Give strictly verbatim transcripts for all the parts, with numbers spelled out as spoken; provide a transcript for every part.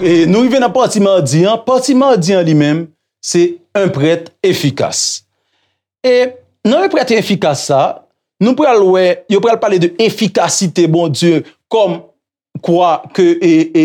E nou rive nan pati madi an. Pati madi an li menm, se un prêtre efficace. E nan un prêtre efficace sa, nou pral wè, yo pral pale de efikasite Bondye kòm kwa ke e, e,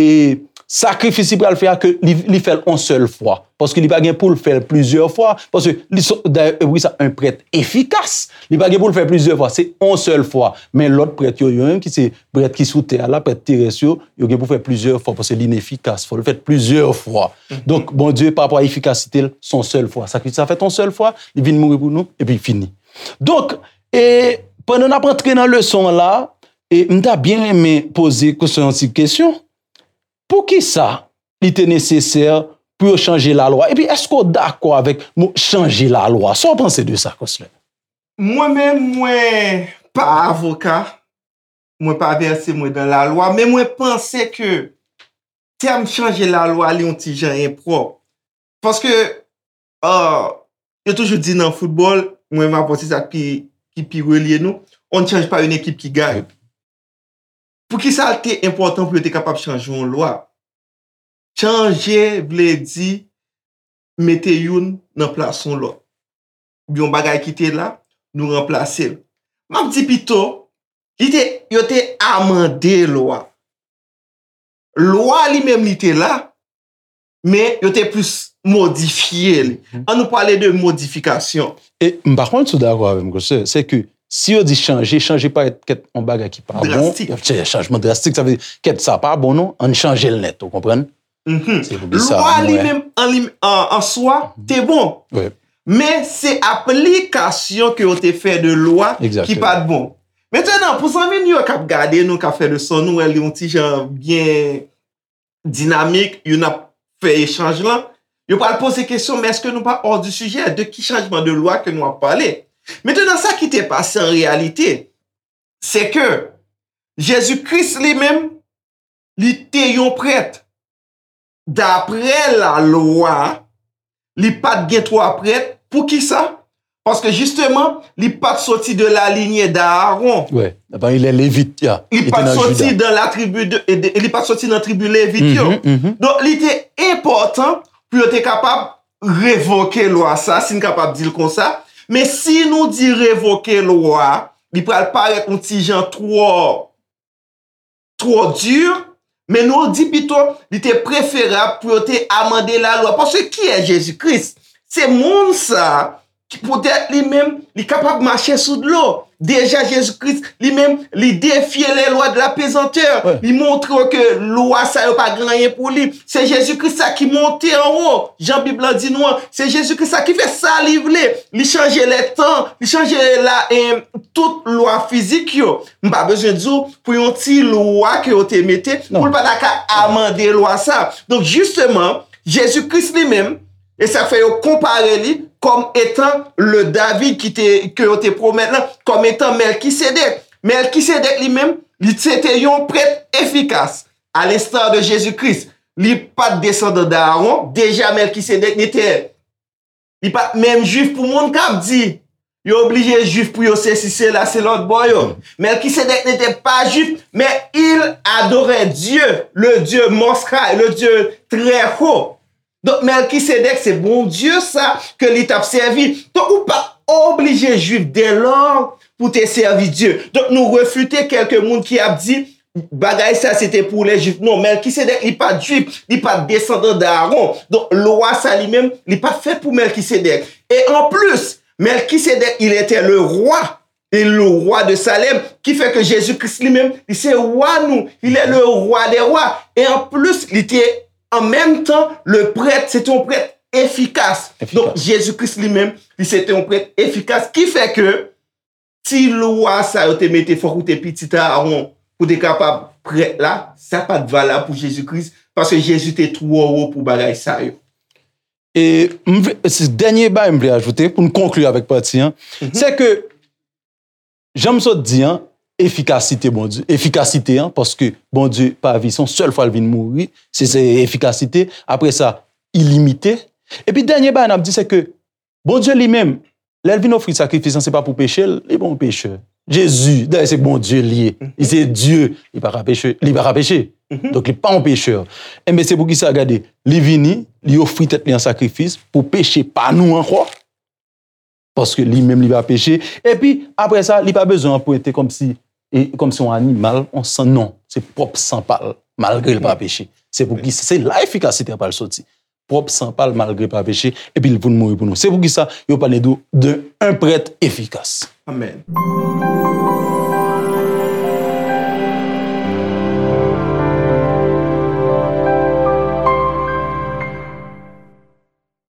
sakrifis li pral fè a, ke li, li fè l on sèl fwa. Paske li pa gen pou l fè l plizyè fwa. Paske li, dayè, e wi, sa, un prêtre efficace. Li pa gen pou l fè plizyè fwa. Se on sèl fwa. Men lòt prèt yo, yo menm ki se prèt ki sou tè a la, prèt terès yo, yo gen pou fè plizyè fwa. Paske li inefikas. Fò l fèt plizyè fwa. Donk, Bondye, pa rapò a efikasite l, se on sèl fwa. Sakrifis la fèt on sèl fwa, li vin mouri pou nou, epi fini. Donk, e, pandan n ap antre nan leson an la, e m ta byen renmen poze Konstan yon ti kesyon. Poukisa li te nesesè pou yo chanje lalwa? Epi, èske w dakò avèk mo chanje lalwa? Sa w panse de sa, Konstan? Mwen menm, mwen pa avoka, mwen pa vèse mwen nan lalwa, men mwen panse ke tèm chanje lalwa li yon ti jan enpwòp. Paske, ah, yo toujou di nan foutbòl, mwen m ap panse sa ki, ki pi relye nou, on ne change pas une équipe qui gagne. Poukisa l te enpòtan pou yo te kapab chanje yon lwa? Chanje vle di mete youn nan plas yon lòt. Yon bagay ki te la, nou ranplase l. M ap di pito, li te, yo te amande lwa. Lwa li menm li te la, men yo te plis modifye li. An nou pale de modifikasyon. E m pa konn si w dakò avè m, Konstan, se ke si yo di chanje, chanje parèt kèt yon bagay ki pa bon, y ap fè chanjman drastik, sa vle di kèt sa pa bon non, ann chanje l nèt, ou konprann? Se pou di sa, lwa li menm an, li, an, an swa te bon. Men se aplikasyon ke yo te fè de lwa ki pa t bon. Mentnan, pou zanmi nou yo k ap gade nou, k ap fè leson, nou wè li yon ti jan byen dinamik, youn ap fè echanj lan. Yo pral poze kesyon, men èske nou pa hors du sujet? De ki chanjman de lwa ke nou ap pale? Mentnan, sa ki te pase an reyalite, se ke Jezi Kris li menm, li te yon prèt. Daprè lalwa, li pa t gen twa prèt. Poukisa? Paske jisteman, li pa t soti de la lignée d'Aaron. Wi, li pa t soti de la tribu de, de, li pa t soti nan tribi Levit yo. Donk, li te enpòtan pou yo te kapab revoke lwa sa, si n kapab di l konsa. Men si nou di revoke lwa, li pral parèt yon ti jan twò twò di, men nou di pito li te preferab pou yo te amande lalwa. Paske kiyès Jezi Kris? Se moun sa ki poutèt li menm, li kapab mache sou dlo. Deja Jezi Kris li menm, li defye les lois de la pesanteur. Li montre w ke lwa sa yo pa gen anyen pou li. Se Jezi Kris sa ki monte anwo. Jan Bib lan di nou an, se Jezi Kris sa ki fè sa li vle. Li chanje lè tan, li chanje la, eh, tout lwa fizik yo. M pa bezwen di w pou yon ti lwa ke yo te mete, pou l pa ta ka amande lwa sa. Donk, jisteman, Jezi Kris li menm, e sa k fè yo konpare li kòm etan le David ki te, ke yo te pwomèt lan, kòm etan Mèlkisedèk. Mèlkisedèk li menm, li se te yon prèt efikas, à l'instar de Jésus-Christ. Li pa t desandan Aaron, deja Mèlkisedèk n'était Li pa t menm jwif pou moun k ap di yo oblije jwif pou yo sesi sela, se lòt bò yo. Mèlkisedèk n'était pas juif, mais il adorait Dieu, le Dieu Most High, le Dieu très haut. Donk Mèlkisedèk se Bondye sa ke li t ap sèvi. Donk ou pa oblije jwif dèlò pou te sèvi Dye. Donk nou refite kèlke moun ki ap di bagay sa se te pou lè jwif. Non, Mèlkisedèk li pa t jwif, li pa t desandan Aaron. Donk lwa sa li menm, li pa t fèt pou Mèlkisedèk. E anplis, Mèlkisedèk il était le roi, et le roi de Salem, ki fè ke Jezi Kris li menm, li se wa nou, il est le roi des rois. E anplis, li te an menm tan le prèt, se te yon prèt efikas. Donk Jezi Kris li menm, li se te yon prèt efikas, ki fè ke ti lwa sa yo te mete fòk ou te pitit Aaron pou te kapab prèt la, sa pa t valab pou Jezi Kris, paske Jezi te twò wo pou bagay sa yo. E m vle, se dènye bagay m vle ajoute pou n konkli avèk pati an, se ke jan m sot di an, efikasite Bondye, efikasite an, paske Bondye pa vi, se yon sèl fwa l vin mouri, se, se efikasite, apre sa, ilimite. Epi dènye bagay n ap di se ke Bondye li menm, Lè l vin ofri sakrifis lan, se pa pou peche l, li pa yon pechè. Jezi, dayè se Bondye l ye. Li se Dye, li pa ka peche, li pa ka peche. Donk li pa yon pechè. Enben se pou kisa, gade, li vini, li ofri tèt li an sakrifis pou peche pa nou ankò. Paske li menm li pa peche. Epi, apre sa, li pa bezwen anprente kòmsi, e, kòmsi yon animal, yon san, non. Se pwòp san pa l, malgre l pa peche. Se pou ki, se la efikasite a pral soti. Pwòp san pa l, malgre l pa peche, epi l vin mouri pou nou. Se pou kisa, yo pale de, de un prêtre efficace. Amèn.